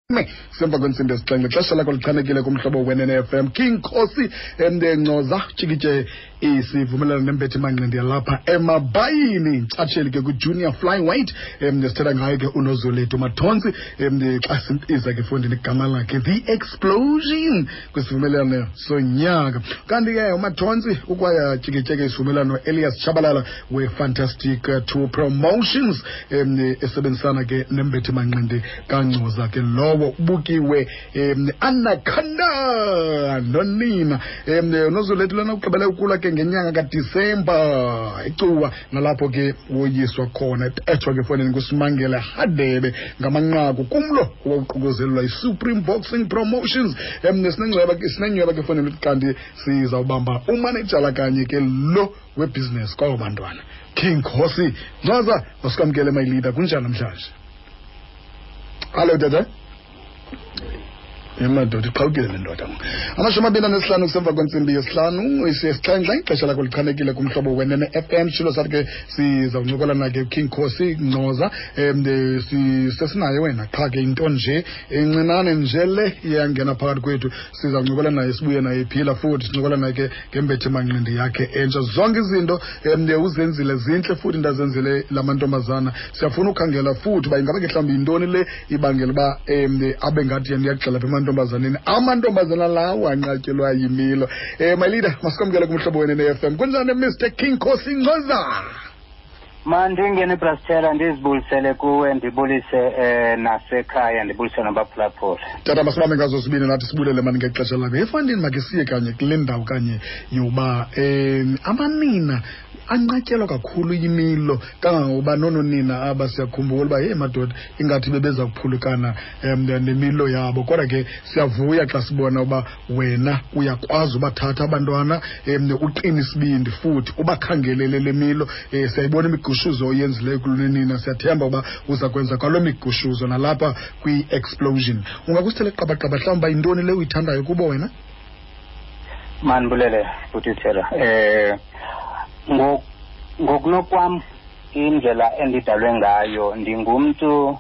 Semva kwentsimbi yesixhenxe, xesha lakho lichanekile kumhlobo wenene FM. King Khosi Ncoza tshikitshe isivumelwano nembethi manqindi yalapha emabayini, ntshatsheli ke kwi-junior flyweight. Sithetha ngayo ke uNozolethu Mathontsi, xa simbiza ke fondini igama lakhe The Explosion kwisivumelwano sonyaka. Kanti ke uMathontsi ukwayatyikitye ke isivumelwano Elias Tshabalala we-Fantastic Two Promotions, esebenzisana ke nembethi manqindi kaNgcoza ke lowo ubukiwe Anaconda nonina. Unozolethu lona ugqibele ukulwa ke ngenyanga kaDisemba eCuwa, nalapho ke woyiswa khona ethwa ke fonini nguSimangele Hadebe ngamanqaku kumlo owawuququzelelwa yi-Supreme Boxing Promotions. Sinencweba ke fonini, kanti sizawubamba umanejala kanye ke lo webhizinesi kwabo bantwana. King Khosi Ncoza, masikwamkele my leader, kunjani namhlanje? Hallo tata. Emadoda, iqhawukile le ndoda. 25 kusemva kwentsimbi yesihlanu, isesixhenxe, ixesha lakho lichanekile kumhlobo wenene FM. Shilo sathi ke sizawuncokola na ke King Khosi Ncoza. Sesinaye wena, qha ke into nje encinane nje le iyangena phakathi kwethu. Sizawuncokola naye, sibuye naye ephila futhi, sincokola naye ke ngembethe manqindi yakhe entsha. Zonke izinto uzenzile zintle futhi ndazenzile la mantombazana. Siyafuna ukhangela futhi uba ingaba ke mhlawumbi yintoni le ibangela uba abe ngathi yena uyagxela apha emantombazaneni, amantombazana lawo anqatyelwa yimilo. My leader, masikwamkele kumhlobo wenene FM. Kunjani, Mr King Khosi Ncoza? Mandingene, Brastela, ndizibulisele kuwe, ndibulise nasekhaya, ndibulise nabaphulaphula. Tata, masibambe ngazo sibini nathi sibulele mani ngexesha lakho. Efandini makhe siye kanye kule ndawo kanye yoba amanina anqatyelwa kakhulu yimilo, kangangokuba noononina aba siyakhumbula uba heyi madoda, ingathi bebeza kuphulukana nemilo yabo. Kodwa ke siyavuya xa sibona uba wena uyakwazi ubathatha abantwana, uqine isibindi futhi ubakhangelele le milo. Siyayibona imigushuzo oyenzileyo kulonina, siyathemba uba uza kwenza kwaloo migushuzo nalapha kwi-Explosion. Ungakusithele qabaqaba mhlawumbi uba yintoni le uyithandayo kubo wena? Mandibulele, bhutithela. Ngokunokwam, indlela endidalwe ngayo, ndingumntu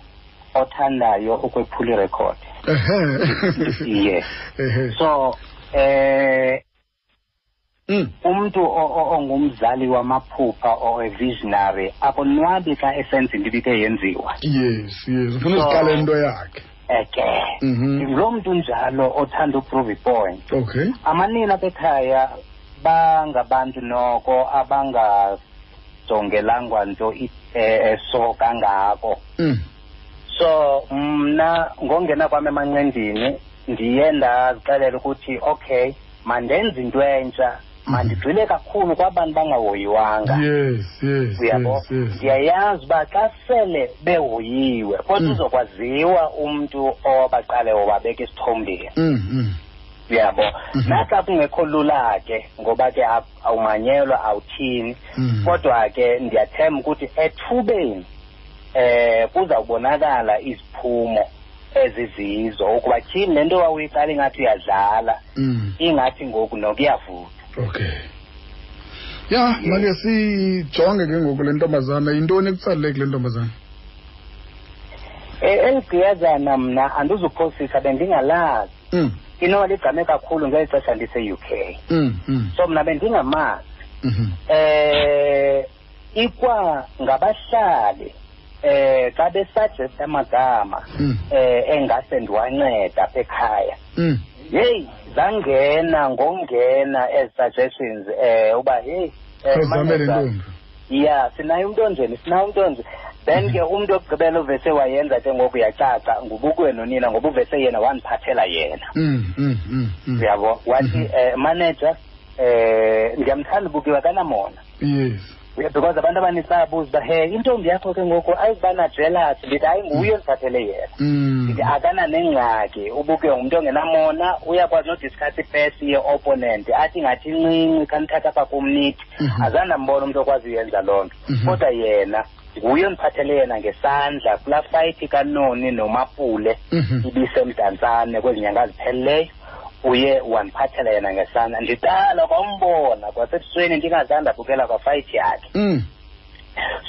othandayo ukwephula irekhodi. Yes. So umuntu ongumzali wamaphupha or a visionary akonwabi xa esenza into ibike yenziwa. Yes, ufuna uziqala into yakhe. Eke lo mntu njalo othanda uprove point. Amanina apha ekhaya bangabantu noko abangajongelangwa nto eso kangako. So mna ngongena kwam emanqindini ndiye ndazixelela ukuthi okay, mandenze into entsha, mandigxile kakhulu kwabantu bangahoyiwanga. Yes. Uyabo? Ndiyayazi uba xa sele behoyiwe kodwa uzokwaziwa umntu owabaqale wabeka isithombeni. Uyabo? Naxa kungekho lula ke, ngoba ke awumanyelwa, awuthini, kodwa ke ndiyathemba ukuthi ethubeni kuzawubonakala iziphumo ezizizo, ukuba tyhini, le nto wawuyiqala ingathi uyadlala, ingathi ngoku nokuyavutha. Okay, ya, make sijonge ke ngoku le ntombazana. Yintoni ekutsalele kule ntombazana? Eli gqiyazana mna andizuphosisa, bendingalazi. Inoba ligqame kakhulu ngeli xesha ndise-UK. So mna bendingamazi. Ikwa ngabahlali xa besuggest amagama engase ndiwanceda apha ekhaya, heyi, zangena ngongena ezi suggestions uba heyi, Khawuzame le manager, ntombi. Ya, sinaye umntu onjeni, sinaye umntu onje. Then ke umntu okugqibela uvese wayenza ke ngoku yacaca ngubukwe nonina, ngoba uvese yena wandiphathela yena. Uyabo, wathi, manager, ndiyamthanda ubukiwe, akanamona. Yeah, because abantu abanintsi bayabuza uba he, intombi yakho ke ngoku ayizuba na-jealous. Ndithi hayi, nguye ondiphathele yena. Ndithi akananengxaki, ubukiwe ngumntu ongenamona, uyakwazi nodiscuss ipesi ye-opponent, athi ingathi incinci, khanithatha apha kum nithi. Azange ndambona umntu okwazi uyenza loo nto. Kodwa yena nguye ondiphathele yena ngesandla kulaa fight kaNoni noMapule ibisemdantsane kwezi nyanga zipheleleyo. Uye wandiphathela yena ngesandla, ndiqala kwambona kwasebusweni, ndingazange ndabukela kwafight yakhe.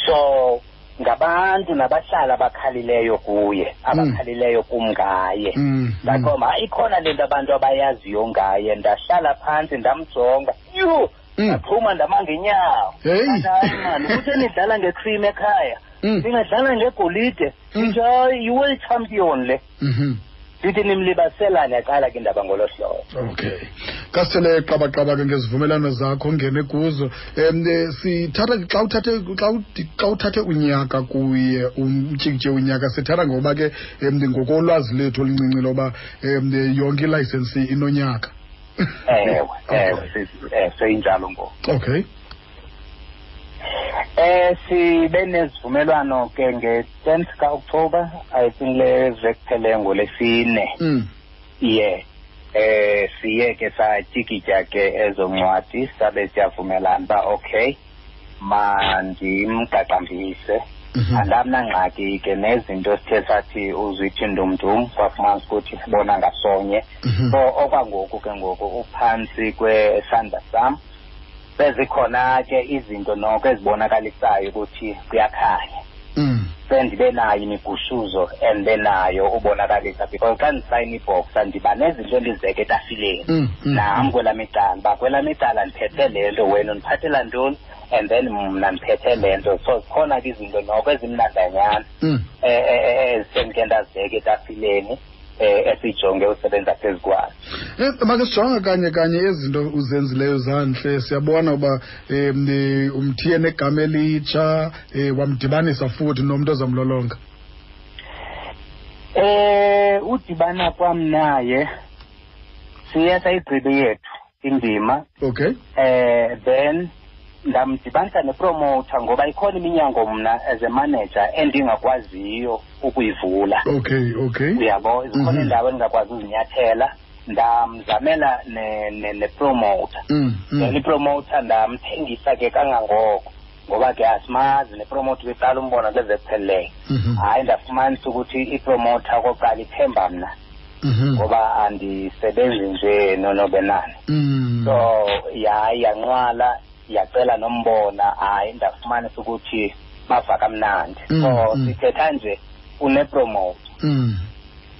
So Ngabantu nabahlali abakhalileyo kuye, abakhalileyo kum ngaye. Ndaqomba hayi, ikhona le nto abantu abayaziyo ngaye. Ndahlala phantsi ndamjonga, yhu, ndaphuma ndama ngenyawo. Hayi mani, uthe nidlala ngecream ekhaya, ningadlala ngegolide, ndithi hayi, yi-world champion le. Ndithi nimlibaselane, yaqala ke indaba ngolo hlobo. Okay, kasithele qabaqaba ke ngezivumelwano zakho ongene kuzo. Sithatha xa uthathe xa uthathe unyaka kuye, umtyikitye unyaka, sithatha ngoba ke ngokolwazi lethu oluncinci loba yonke ilayisensi inonyaka. Ewe, ewe, seyinjalo ngoku. Okay. Sibe nezivumelwano ke nge-10th ka-October, I think le veki ngolesine. Yeah. Siye ke satyikitya ke ezo ncwadi, sabe siyavumelana uba okay, mandimqaqambise. Andamnangxaki ke nezinto sithe sathi uzithi ndumndum, kwafumanisa ukuthi sibona ngasonye. So okwangoku ke ngoku uphantsi kwesandla sam. Sezikhona ke izinto noko ezibonakalisayo ukuthi kuyakhanya. Sendibe nayo imigushuzo endibe nayo ubonakalisa, because xa ndisayina ibhoxa ndiba nezinto endizibeka etafileni. Nam kwelam icala, uba kwelam icala ndiphethe le nto, wena undiphathela ntoni, and then mna ndiphethe le nto. So zikhona ke izinto noko ezimnandanyana ezisendike ndazibeka etafileni, esijonge usebenza phezu kwazo. Make sijonge kanye kanye ezinto uzenzileyo zantle. Siyabona uba umthiye negama elitsha, wamdibanisa futhi nomntu ozamlolonga. Udibana kwam naye siye sayigqibe yethu indima. Then ndamdibanisa nepromoter, ngoba ikhona iminyango mna as a manager endingakwaziyo ukuyivula. Uyabo, zikhona iindawo endingakwazi uzinyathela. Ndamzamela nepromoter. Then ipromoter ndamthengisa ke kangangoko, ngoba ke asimazi nepromoter, beqala umbona kule veki phelileyo. Hayi, ndafumanisa ukuthi ipromoter okokuqala ithemba mna, ngoba andisebenzi nje nonobenani. So yayi yanqwala, yacela nombona. Hayi, ndafumanisa ukuthi bava kamnandi. So sithetha nje unepromoter.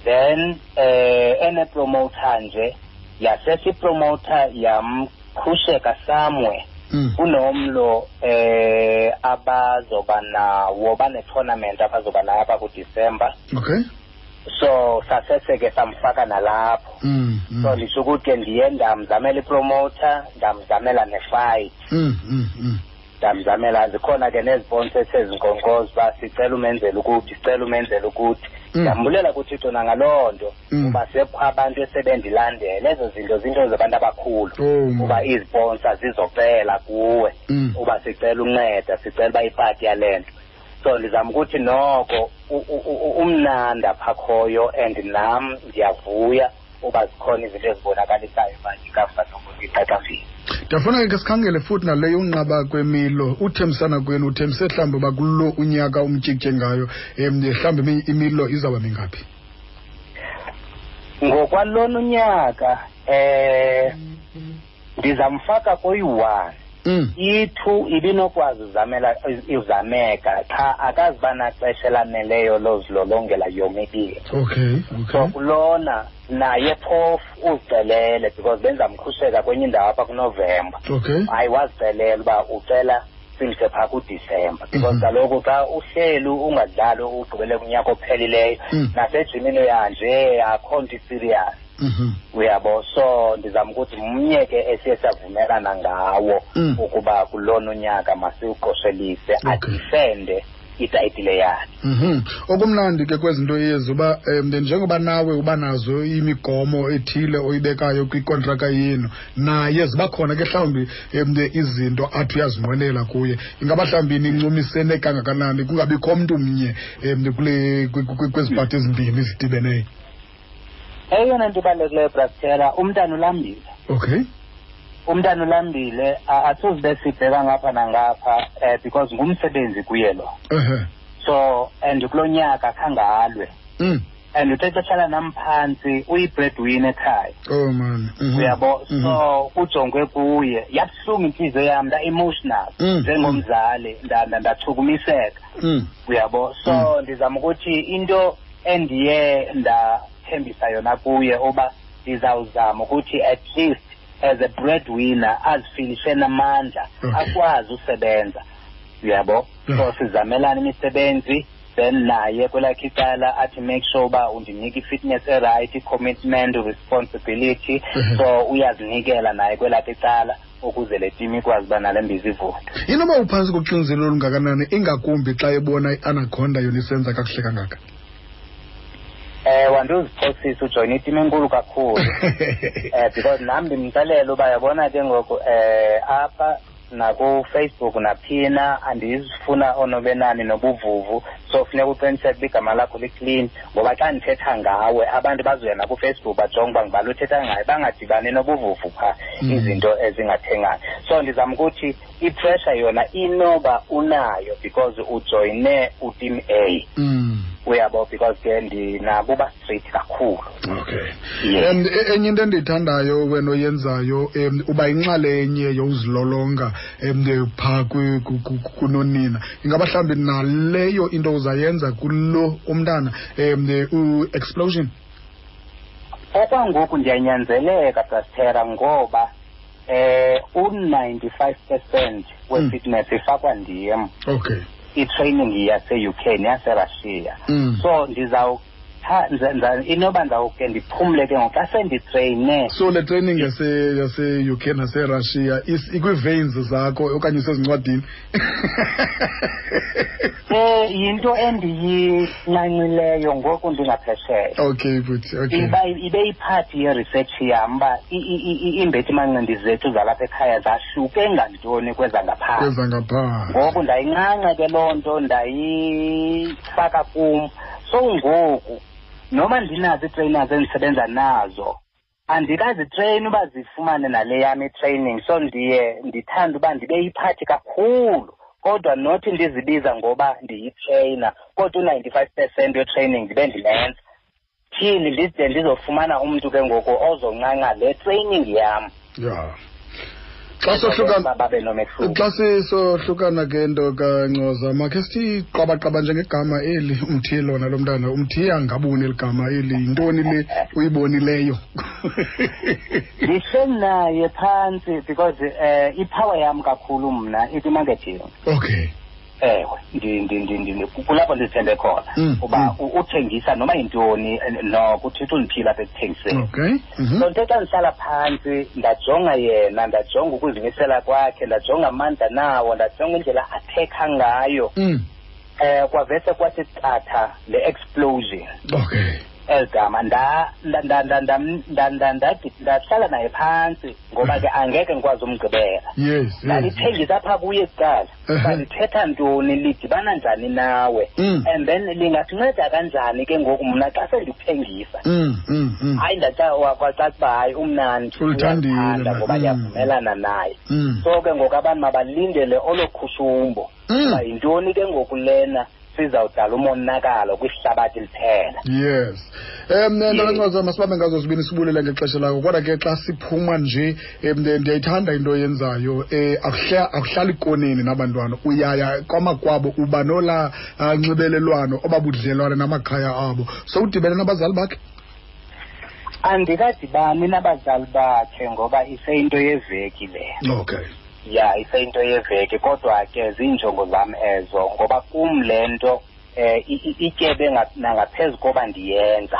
Then enepromoter nje, yasese ipromoter yamkhusheka somewhere. Kunomlo abazoba nawo, bane-tournament abazoba nayo apha kuDisemba. So sasese ke samfaka nalapho. So nditsho ukuthi ke ndiye ndamzamela ipromoter, ndamzamela nefight. Ndamzamela, zikhona ke neziponsa esezinkonkoza uba sicela umenzela ukuthi, sicela umenzela ukuthi. Ndambulela kuThixo nangaloo nto, kuba sekukho abantu esebendilandela. Ezo zinto zinto zabantu abakhulu, uba iziponsa zizocela kuwe, uba sicela unceda, sicela uba ipati yale nto. So ndizama ukuthi noko umnandi apha khoyo, and nam ndiyavuya uba zikhona izinto ezibonakalisayo uba ikamva nokuthi iqaqambile. Ndiyafuna ke sikhangele futhi nale yonqaba kwemilo. Uthembisana kwenu, uthembise mhlawumbi uba kulo unyaka umtyikitye ngayo, mhlawumbi imilo izawuba mingaphi? Ngokwalona unyaka ndizamfaka koyi-1. I-2 ibinokwazi uzamela izameka, qha akaziba naxesha elaneleyo lozilolongela yomibini. So kulona naye phofu uzicelele, because benzamkhusheka kwenye indawo apha kuNovemba. Hayi, wazicelela uba ucela simse phaa kuDisemba, because kaloku xa uhleli ungadlali ugqibele kunyaka ophelileyo, nasejimini uyanje, akho nto iserious. Uyabo, so ndizama ukuthi mnye ke esiye savumelana ngawo ukuba kulona unyaka masiwuqoshelise, adifende itayitile yakhe. Okumnandi ke kwezinto ezi uba njengoba nawe uba nazo imigomo ethile oyibekayo kwikontraka yenu, naye ziba khona ke mhlawumbi izinto athi uyazinqwenela kuye. Ingaba mhlawumbi nincumisene kangakanani kungabikho mntu mnye kule kwezi pati ezimbini zidibeneyo? Eyona nto ibalulekileyo, Brastera, umntana ulambile. Umntana ulambile, asuzibe sibheka ngapha nangapha, because ngumsebenzi kuye lo. So and kulo nyaka khange alwe. And uthe xa hlala nam phantsi, uyi-breadwinner ekhaya. Oh man. Uyabo, so kujongwe kuye. Yabuhlungu intliziyo yam, nda-emotional njengomzali, ndachukumiseka. Uyabo, so ndizama ukuthi into endiye ndathembisa yona kuye uba ndizawuzama ukuthi at least as a breadwinner azifilishe namandla, akwazi usebenza. Uyabo, so sizamelana imisebenzi, then naye kwelakhe icala athi make sure uba undinika i-fitness e-right, i-commitment, responsibility. So uyazinikela naye kwelakhe icala ukuze le team ikwazi uba nale mbiza ivuthe. Inoba uphantsi koxinzelelo olungakanani, ingakumbi xa ebona i-Anaconda yona isenza kakuhle kangaka? Wandiziphosisa, ujoyina iteam enkulu kakhulu, because nam ndimxelela uba yabona ke ngoku, apha naku-Facebook naphina andizifuna onobenani nobuvuvu, so funeka uqiniseke uba igama lakho li-clean, ngoba xa ndithetha ngawe abantu bazoya naku-Facebook bajonge uba ngubani uthetha ngayo, bangadibani nobuvuvu phaa, izinto ezingathengani. So ndizama ukuthi i-pressure yona inoba unayo because ujoyine uteam A. Uyabo, because ke ndinabo uba straight kakhulu. Okay. Enye into endiyithandayo wena oyenzayo, uba inxalenye yozilolonga phaa kunonina. Ingaba mhlawumbi naleyo into uzayenza kulo umntana, u-Explosion? Okwangoku ndiyanyanzeleka, Brastera, ngoba u-95% we-fitness ifakwa ndim. I-training yase-UK neyase-Russia. So inoba ndawuke ndiphumle ke ngoku xa senditreyine. So le training yase-UK nase-Russia ikwi-veins zakho okanye isezincwadini? Yinto endiyincancileyo ngoku ndingaphesheya. Okay, but okay. Ibe yiphathi ye-research yam uba iimbethimanqindi zethu zalapha ekhaya zahluke ngantoni kwezangaphandle. Kwezangaphandle. Ngoku ndayincanca ke loo nto, ndayifaka kum. So ngoku noma ndinazo ii-trainers endisebenza nazo, andikazitreyini uba zifumane nale yam i-training. So ndiye ndithande uba ndibe yiphathi kakhulu, kodwa nothi ndizibiza ngoba ndiyitreyina, kodwa u-95% we-training ndibe ndilenza. Thini ndide ndizofumana umntu ke ngoku ozoncanca le training yam. Yeah. Xa sisohlukana ke nto kaNcoza, makhe sithi qabaqaba njengegama eli umthiye lona lo mntana, umthiye angaboni eli gama eli, yintoni le uyibonileyo? Ndihleli naye phantsi because i-power yam kakhulu mna ikwi-marketing. Okay. Ewe, kulapho ndizithembe khona uba uthengisa noma yintoni, noko uThixo undiphile apha ekuthengiseni. Okay. So ndithe xa ndihlala phantsi ndajonga yena, ndajonga ukuzimisela kwakhe, ndajonga amandla nawo, ndajonga indlela athekha ngayo. Kwavese kwathi qatha le explosion. Okay. Eli gama ndahlala naye phantsi ngoba ke angeke ngikwazi umgqibela. Yes. Ndalithengisa apha kuye kuqala. Uba lithetha ntoni, lidibana njani nawe, and then lingasinceda kanjani ke ngoku mna xa sendikuthengisa. Hayi, kwacaca uba hayi umnandi, ulithandile ngoba ndiyavumelana naye. So ke ngoku abantu mabalindele olo khushumbo. Uba yintoni ke ngoku lena sizawudala umonakalo kwihlabathi liphela. Yes. NtokaNcoza, masibambe ngazo zibini, sibulele ngexesha lakho. Kodwa ke xa siphuma nje, ndiyayithanda into oyenzayo. Akuhlali koneni nabantwana, uyaya kwamakwabo, uba nola nxibelelwano obabudlelwane namakhaya abo. So udibene nabazali bakhe? Andikadibani nabazali bakhe ngoba iseyinto yeveki le. Okay. Ya, iseyinto yeveki, kodwa ke ziinjongo zam ezo ngoba kum le nto ityebe nangaphezu koba ndiyenza.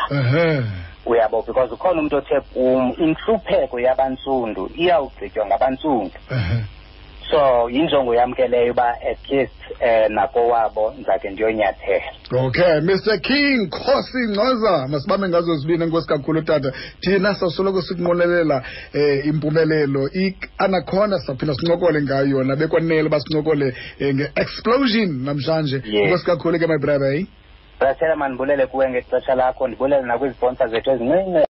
Uyabo, because ukhona umntu othe kum intlupheko yabantsundu iyawugqitywa ngabantsundu. So yinjongo yam ke leyo uba at least nakowabo ndizake ndiyonyathela. Okay, Mr King Khosi Ncoza, masibambe ngazo zibini. Enkosi kakhulu tata. Thina sawusoloko sikunqwenelela impumelelo. I-Anaconda sawuphinda sincokole ngayo yona, bekwanele uba sincokole nge-explosion namhlanje. Enkosi kakhulu ke, my brother. Brasela, mandibulele kuwe ngexesha lakho, ndibulele nakwiziponsa zethu ezincinci.